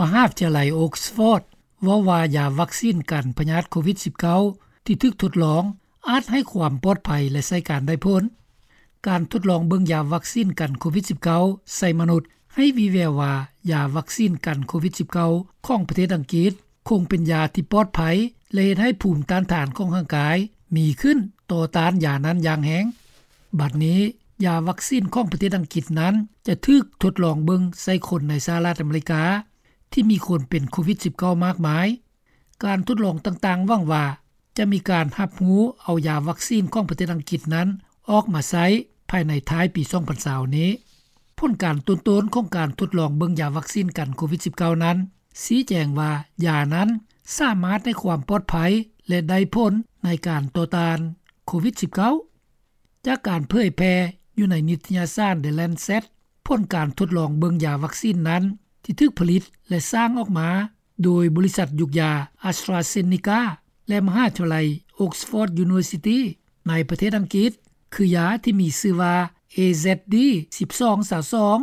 ມະຫາວິທະຍາໄລ Oxford ເວົ້າວ່າ ຢາວັກຊີນກັນພະຍາດໂຄວິດ-19 ທີ່ຖືກທົດລອງ ອາດໃຫ້ຄວາມປອດໄພ ແລະ ໃຊ້ການໄດ້ຜົນ. ການທົດລອງເບິ່ງຢາວັກຊີນກັນໂຄວິດ-19 ໃສ່ມະນຸດ ໃຫ້ວີແວວວ່າ ຢາວັກຊີນກັນໂຄວິດ-19 ຂອງປະເທດອັງກິດ ຄົງເປັນຢາທີ່ປອດໄພ ແລະ ເຮັດໃຫ້ພູມຕ້ານທານຂອງຮ່າງກາຍມີຂຶ້ນ ຕໍ່ຕ້ານຢານັ້ນຢ່າງແຮງ. ບັດນີ້ ຢາວັກຊີນຂອງປະເທດອັງກິດນັ້ນ ຈະຖືກທົດລອງເບິ່ງໃສ່ຄົນໃນສະຫະລັດອາເມລິກາ ທີ່ມີຄົນເປັນໂຄວິດ-19 ມາກມາຍ. ການທົດລອງຕ່າງໆ ຫວັງວ່າຈະມີການຮັບຮູ້ເອົາຢາວັກຊີນຂອງປະເທດອັງກິດນັ້ນ ອອກມາໃຊ້ພາຍໃນທ້າຍປີ ສອງພັນຊາວນີ້. ຜົນການຕົ້ນໆຂອງການທົດລອງເບິ່ງຢາວັກຊີນກັນໂຄວິດ-19 ນັ້ນ ຊີ້ແຈງວ່າ ຢານັ້ນສາມາດໃຫ້ຄວາມປອດໄພ ແລະ ໄດ້ຜົນໃນການຕໍ່ຕ້ານໂຄວິດ-19. ຈາກການເຜີຍແຜ່ຢູ່ໃນນິດຕະຍະສານ The Lancet, ຜົນການທົດລອງເບິ່ງຢາວັກຊີນນັ້ນ ທີ່ຖືກຜະລິດ ແລະ ສ້າງອອກມາໂດຍບໍລິສັດຢຸກຢາ AstraZeneca ແລະ ມະຫາວິທະຍາໄລ Oxford University ໃນປະເທດອັງກິດ ຄືຢາທີ່ມີຊື່ວ່າ AZD ສິບສອງຊາວສອງ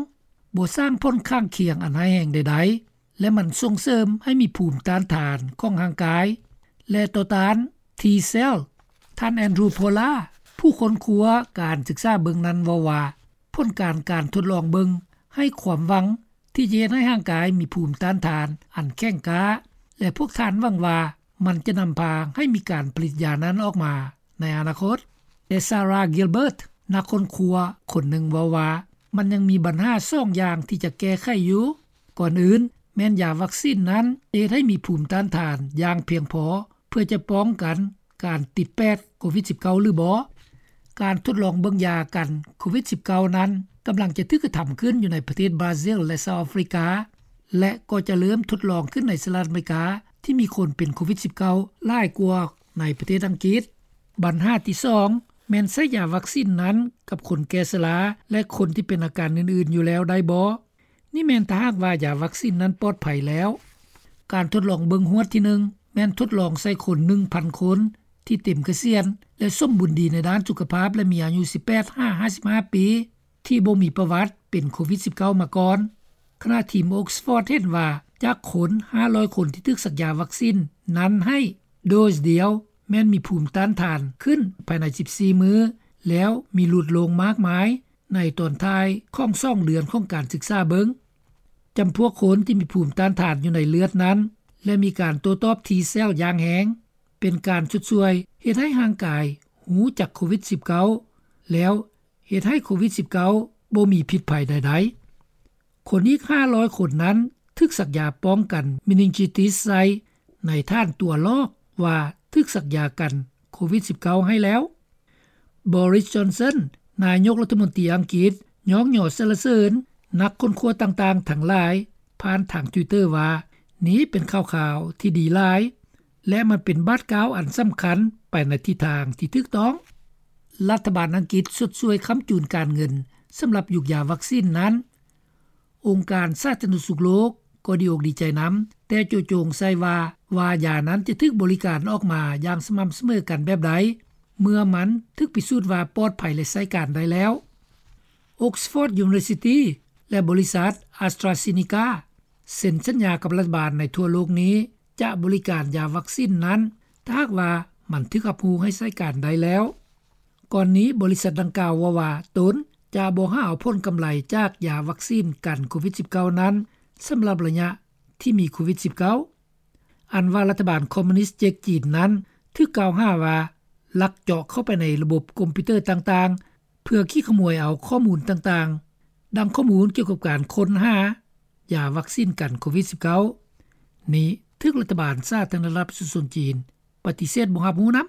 ບໍ່ສ້າງຜົນຂ້າງຄຽງອັນຮ້າຍແຮງໃດໆ ແລະ ມັນສົ່ງເສີມໃຫ້ມີພູມຕ້ານທານຂອງຮ່າງກາຍ ແລະ ຕໍ່ຕ້ານ T cell. ທ່ານ Andrew Pollard, ຜູ້ຄົ້ນຄວ້າການສຶກສາເບິ່ງນັ້ນເວົ້າວ່າ ຜົນການການທົດລອງເບິ່ງໃຫ້ຄວາມຫວັງທີ່ຈະເຮັດໃຫ້ຮ່າງກາຍມີພູມຕ້ານທານອັນແຂງກ້າ ແລະ ພວກທ່ານຫວັງວ່າມັນຈະນຳພາໃຫ້ມີການຜະລິດຢານັ້ນອອກມາໃນອະນາຄົດ. ແຕ່ Sarah Gilbert, ນັກຄົ້ນຄວ້າຄົນໜຶ່ງເວົ້າວ່າ ມັນຍັງມີບັນຫາສອງຢ່າງທີ່ຈະແກ້ໄຂຢູ່. ກ່ອນອື່ນ ແມ່ນຢາວັກຊີນນັ້ນຈະເຮັດໃຫ້ມີພູມຕ້ານທານຢ່າງພຽງພໍ ເພື່ອຈະປ້ອງກັນການຕິດແປດໂຄວິດ-19 ຫຼືບໍ່. ການທົດລອງເບິ່ງຢາກັນໂຄວິດ-19 ນັ້ນ ກຳລັງຈະຖືກກະທຳຂຶ້ນຢູ່ໃນປະເທດບຣາຊິລ ແລະ ເຊົາອາຟຣິກາ ແລະ ກໍຈະເລີ່ມທົດລອງຂຶ້ນໃນສະຫະລັດອາເມລິກາ ທີ່ມີຄົນເປັນໂຄວິດ-19 ຫຼາຍກວ່າໃນປະເທດອັງກິດ. ບັນຫາທີສອງ ແມ່ນໃຊ້ຢາວັກຊີນນັ້ນກັບຄົນແກ່ຊະລາ ແລະ ຄົນທີ່ເປັນອາການອື່ນໆຢູ່ແລ້ວໄດ້ບໍ່? ນີ້ແມ່ນຖ້າຫາກວ່າຢາວັກຊີນນັ້ນປອດໄພແລ້ວ. ການທົດລອງເບິ່ງຮວດທີໜຶ່ງ ແມ່ນທົດລອງໃສ່ຄົນໜຶ່ງພັນຄົນ ທີ່ເຕັມກະສຽນ ແລະ ສົມບູນດີໃນດ້ານສຸຂະພາບ ແລະ ມີອາຍຸສິບແປດຫາຫ້າສິບຫ້າປີ ທີ່ບໍ່ມີປະຫວັດເປັນໂຄວິດ-19 ມາກ່ອນ. ຂະນະທີມ Oxford ເຫັນວ່າ ຈາກຄົນຫ້າຮ້ອຍຄົນທີ່ຖືກສັກຢາວັກຊີນນັ້ນໃຫ້ໂດສດຽວ ແມ່ນມີພູມຕ້ານທານຂຶ້ນພາຍໃນສິບສີ່ມື້ ແລ້ວມີຫຼຸດລົງມາກມາຍໃນຕອນທ້າຍຂອງສອງເດືອນຂອງການສຶກສາເບິ່ງ. ຈຳພວກຄົນທີ່ມີພູມຕ້ານທານຢູ່ໃນເລືອດນັ້ນ ແລະ ມີການໂຕ້ຕອບ T cell ຢ່າງແຮງ ເປັນການຊົດຊ່ວຍເຮັດໃຫ້ຮ່າງກາຍຮູ້ຈັກໂຄວິດ-19 ແລ້ວເຮັດໃຫ້ໂຄວິດ-19 ບໍ່ມີພິດໄພໃດໆ. ຄົນອີກຫ້າຮ້ອຍຄົນນັ້ນ ຖືກສັກຢາປ້ອງກັນ meningitis ໃສ່ ໃນຖານຕົວະຫຼອກວ່າຖືກສັກຢາກັນໂຄວິດ-19 ໃຫ້ແລ້ວ. Boris Johnson, ນາຍົກລັດຖະມົນຕີອັງກິດ ຍ້ອງຍໍສັນລະເສີນນັກຄົ້ນຄວ້າຕ່າງໆທັງຫຼາຍ ຜ່ານທາງ Twitter ວ່າ ນີ້ເປັນຂ່າວຄາວທີ່ດີຫຼາຍ ແລະ ມັນເປັນບາດກ້າວອັນສຳຄັນໄປໃນທິດທາງທີ່ຖືກຕ້ອງ. ລັດຖະບານອັງກິດຊົດຊ່ວຍຄ້ຳຈູນການເງິນສຳລັບຢຸກຢາວັກຊີນນັ້ນ. ອົງການສາທາລະນະສຸກໂລກກໍດີອົກດີໃຈນຳ, ແຕ່ໂຈະຈົງໃສ່ວ່າ ວ່າຢານັ້ນຈະຖືກບໍລິການອອກມາຢ່າງສະໝ່ຳສະເໝີກັນແບບໃດ ເມື່ອມັນຖືກພິສູດວ່າປອດໄພ ແລະ ໃຊ້ການໄດ້ແລ້ວ. Oxford University ແລະ ບໍລິສັດ AstraZeneca ເຊັນສັນຍາກັບລັດຖະບານໃນທົ່ວໂລກນີ້ ຈະບໍລິການຢາວັກຊີນນັ້ນ ຖ້າຫາກວ່າມັນຖືກຮັບຮູ້ໃຫ້ໃຊ້ການໄດ້ແລ້ວ. ກ່ອນນີ້ບໍລິສັດດັ່ງກ່າວເວົ້າວ່າ ຕົນຈະບໍ່ຫາເອົາຜົນກຳໄລຈາກຢາວັກຊີນກັນໂຄວິດ-19 ນັ້ນ ສຳລັບໄລຍະທີ່ມີໂຄວິດ-19. ອັນວ່າລັດຖະບານຄອມມູນິດເຈັກຈີນນັ້ນ ຖືກກ່າວຫາວ່າ ລັກເຈາະເຂົ້າໄປໃນລະບົບຄອມພິວເຕີຕ່າງໆ ເພື່ອຂີ້ຂະໂມຍເອົາຂໍ້ມູນຕ່າງໆ ດັ່ງຂໍ້ມູນກ່ຽວກັບການຄົ້ນຫາຢາວັກຊີນກັນໂຄວິດ-19 ນີ້ ຖືກລັດຖະບານສາທາລະນະລັດປະຊາຊົນຈີນປະຕິເສດບໍ່ຮັບຮູ້ນຳ.